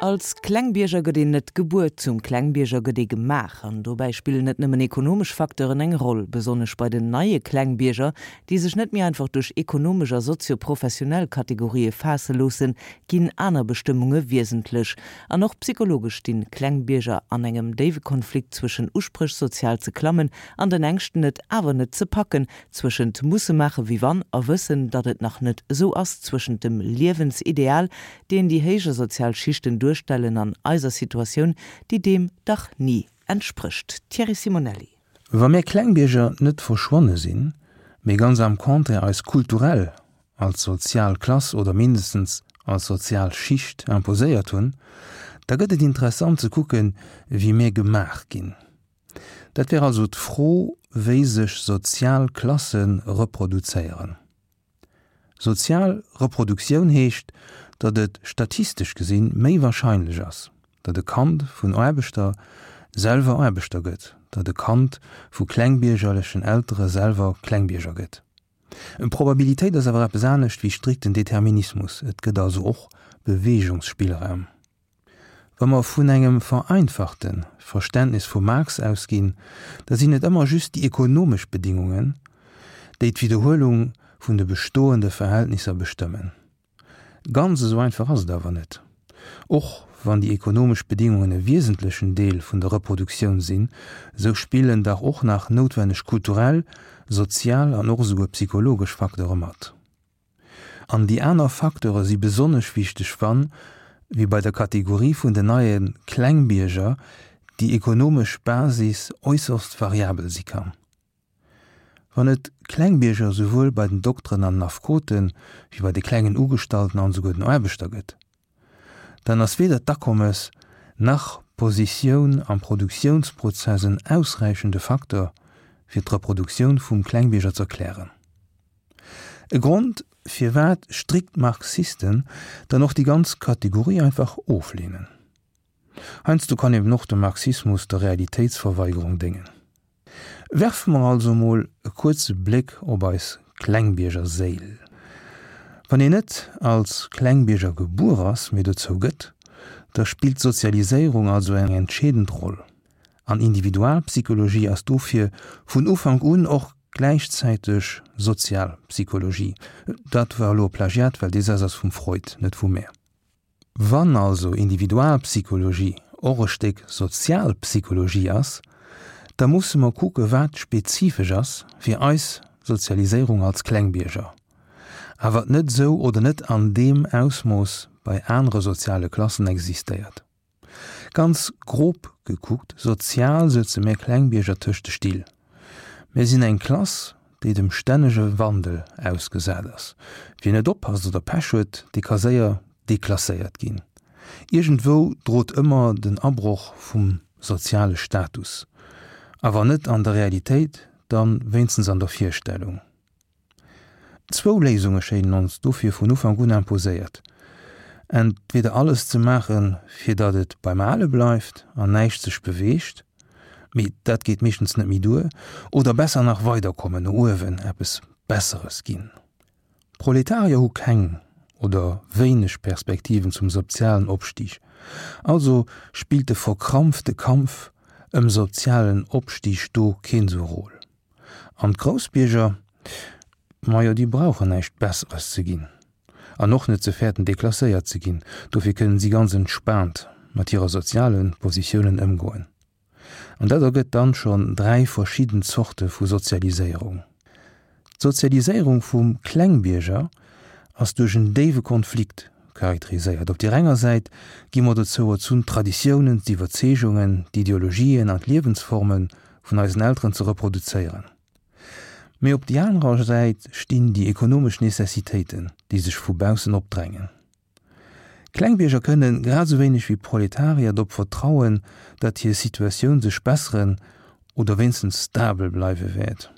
Als Klengbierger gëtt een net gebuer, zum Klengbierger gëtt ee gemaach. An dobäi spillen net nëmmen ekonomesch Facteuren eng Roll. Besonnesch bei den neie Klengbierger, déi sech net méi einfach duerch ekonomesch a sozio-professionell Kategorië faasse loossen, ginn aner Bestëmmunge wiesentlech. An och psychologesch stinn Klengbierger an engem déiwe Konflikt zwëschen Uspréch sozial ze klammen an den Ängschten et awer net ze packen, zwëschent musse maache wéi wann a wëssen, datt et nach net esou ass, zwëschent dem Liewensideal, deen déi héijer sozial Schichten duerstellen, an eiser Situatioun, déi deem dach ni entsprécht. Thierry Simonelli. Wa mir Klengbierger net verschwonne sinn, mee ganz am Contraire eis kulturell als sozial Klass oder mindestens als sozial Schicht imposéiert hunn, da gëtt et interessant ze kucken, wéi mir gemaach ginn. Dat wär also d'Fro, wéi sech sozial Klasse reproduzéieren. Sozial Reproduktioun heescht, datt et statistesch gesinn méi warscheinlech ass, datt e Kand vun Aarbechter selwer Aarbechter gëtt, datt e Kand vu klengbiergerlechen Eltere selwer Klengbierger gëtt. Probabilitéit ass awer eppes anescht wéi strikten Determinismus, et gëtt also och Beweegungsspillraum. Wa mer vun engem vereinfachte Verständnis vum Marx ausginn, da sinn et ëmmer just déi ekonomesch Bedingungen, déi d'Widderhuelung vun de bestoende Verhältnisser bestëmmen. Ganz esou einfach ass et awer net. Och wann déi ekonomesch Bedingungen e wiesentlechen Deel vun der Reproduktioun sinn, esou spillen dach och nach noutwenneg kulturell, sozial an och esouguer psychologesch Facteure mat. An déi aner Facteure si besonnesch wichteg, wann, wéi bei der Kategorie vun den neie Klengbierger, déi ekonomesch Basis äusserst variabel si kann. Wann et Klengbierger souwuel bei den Dokteren an den Affekote wéi bei de klengen Ugestallten an esouguer den Aarbechter gëtt, dann ass weder d'Akommes nach d'Positioun am Produktiounsprozess en ausräichende Facteur, fir d'Reproduktioun vum Klengbierger z'erklären. E Grond, firwat strikt Marxisten dann och déi ganz Kategorie einfach ofleenen. Heiansdo kann eben och de Marxismus der Realitéitsverweigerung déngen. Werfe mer also mol e kuerze Bléck op eis Klengbiergerséil. Wann een net als Klengbierger gebuer ass, mee dozou gëtt, da spillt d'Sozialiséierung also eng entscheedend Roll. An Individualpsychologie ass dofir vun Ufank un och gläichzäiteg Sozialpsychologie. Dat war elo e Plagiat, well dee Saz ass vum Freud, net vu mär. Wann also Individualpsychologie och e Stéck Sozialpsychologie ass, da musse mer kucke wat spezifesch ass fir eis Sozialiséierung als Klengbierger, a wat net esou oder net an deem Ausmooss bei anere soziale Klassen existéiert. Ganz grob gekuckt, sozial sëtze mär Klengbierger tëscht de Still. Mär sinn eng Klass, déi dem stännege Wandel ausgesat ass. Wien net oppasst oder Pech huet, dee ka séier deklasséiert ginn. Iergendwou drot ëmmer den Abroch vum soziale Status. A wann net an der Realitéit, dann wéinstens an der Virstellung. Zwou Léisunge schéinen ons dofir vun Ufank un imposéiert, entweder alles ze maachen, fir datt et beim Ale bleift an näischt sech beweegt, mee dat geet meeschtens net méi duer, oder besser nach weiderkommen, no uewen, eppes Besseres ginn. Proletarier hu keng oder wéineg Perspektiven zum sozialen Opstig, also spillt de verkrampfte Kampf ëm sozialen Opstig do keen sou Rôle. An d'Groussbierger, majo déi brauchen näischt Besseres ze ginn an och net ze fäerten deklasséiert ze ginn, dofir kënnen si ganz entspaant mat hirer soziale Positiounen ëmgoen. An dat ergëtt dann schonn 3 verschidden Zorte vu Sozialiséierung. D'Sozialiséierung vum Klengbierger ass duerch en déiwe Konflikt charakteriséiert. Op deer enger Säit gi mer dozou erzunn d'Traditiounen, d'Iwwerzeegungen, d'Ideologien an d'Liewensforme vun eisen Elteren ze reproduzéieren. Mee op déi anerer Säit stinn déi ekonomesch Necessitéiten, déi sech vu baussen opdrängen. Klengbierger kënnen, grad esou wéineg wéi Proletarier, drop vertrauen, datt hir Situatioun sech besseren oder wéinstens stabel bleiwe wäert.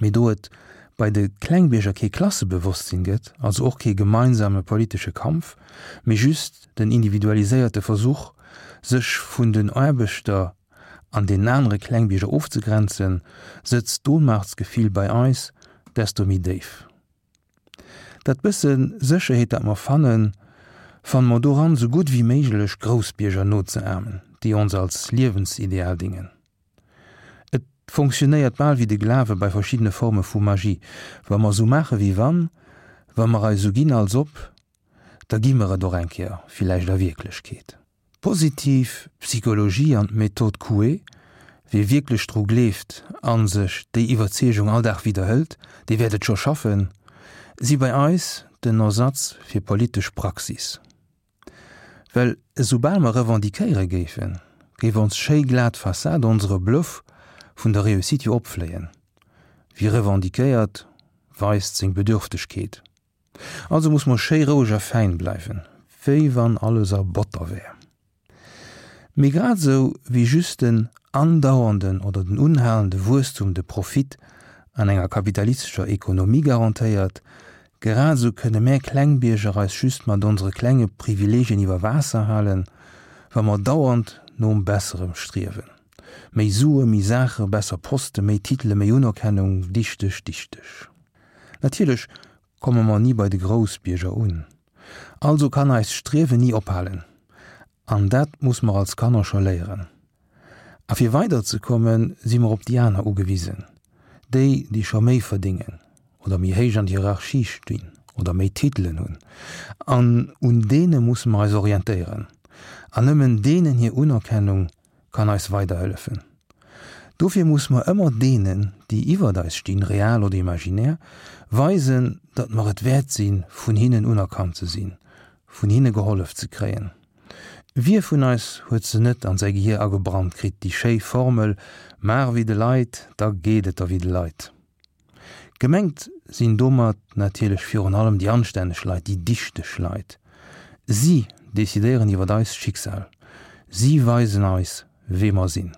Mee do et bei de Klengbierger kee Klassebewosstsinn gëtt, also och kee gemeinsame politesche Kampf, mee just den individualiséierte Versuch, sech vun den Aarbechter an deenen anere Klengbierger ofzegrenzen, sëtzt d'Ohnmachtsgefill bei eis desto méi déif. Dat bësse Sécherheet, dat mer fannen, Fanne mer doran, sou gutt wéi méiglech Groussbierger nozeahmen, déi ons als Liewensideal dingen. Et fonctionnéiert bal wéi de Glawe bei verschiddene Forme vu Magie, wa mer sou maache wéi wann, wa mer eis sou ginn als ob, da gi mer et och eng Kéier villäicht a Wierklechkeet. D'positiv Psychologie an d'Méthode Coué, Wie wierklech dru gleeft a sech déi Iwwerzeegung all Dag widderhëlt, dee wäert et scho schaffen, si bei eis den Ersatz fir politesch Praxis. Well esoubal mer revendiquéiere géifen, géif ons schéi glat Fassade onsere Bluff vun der Réussite jo opfléien. Wie revendiquéiert, weist seng Bedürftegkeet. Also muss mer schéi roueg a fäin bleiwen, wéi wann alles a Botter wär. Mee grad esou wéi just den andauernden oder den unhalende Wuesstum de Profit an enger kapitalistescher Ekonomie garantéiert, grad esou kënne mär Klengbierger eis just mat onsere klenge Privilegien iwwer Waasser halen, wa mer dauernd nom Besserem striewen. Méi Sue, méi Saache, besser Poste, méi Titele, méi Unerkennung, dichteg, dichteg. Natierlech komme mer ni bei de Groussbierger un. Also kann eist Striewen ni ophalen. An dat muss mer als Kanner scho léieren. A fir weider ze kommen, si mer op déi aner ugewisen. Déi, déi scho méi verdéngen oder méi héich an der Hierarchie stinn oder méi Titelen hunn. An un deene musse mer eis orientéieren. An nëmmen deenen hir Unerkennung kann eis weiderhëllefen. Dofir muss mer ëmmer deenen, déi iwwert eis stinn, real oder imaginär, weisen, datt mer et wäert sinn, vun hinnen unerkannt ze sinn, vun hinne gehollef ze kréien. Wie vun eis huet se net an säi Gehier agebrannt kritt, déi schéi Formel, Maach ewéi de Leit, da geet et der wéi de Leit. Gemengt sinn domat natierlech virun allem déi anstänneg Leit, déi dichteg Leit. Si decidéieren iwwer eist Schicksal. Si weisen eis, wee mer sinn.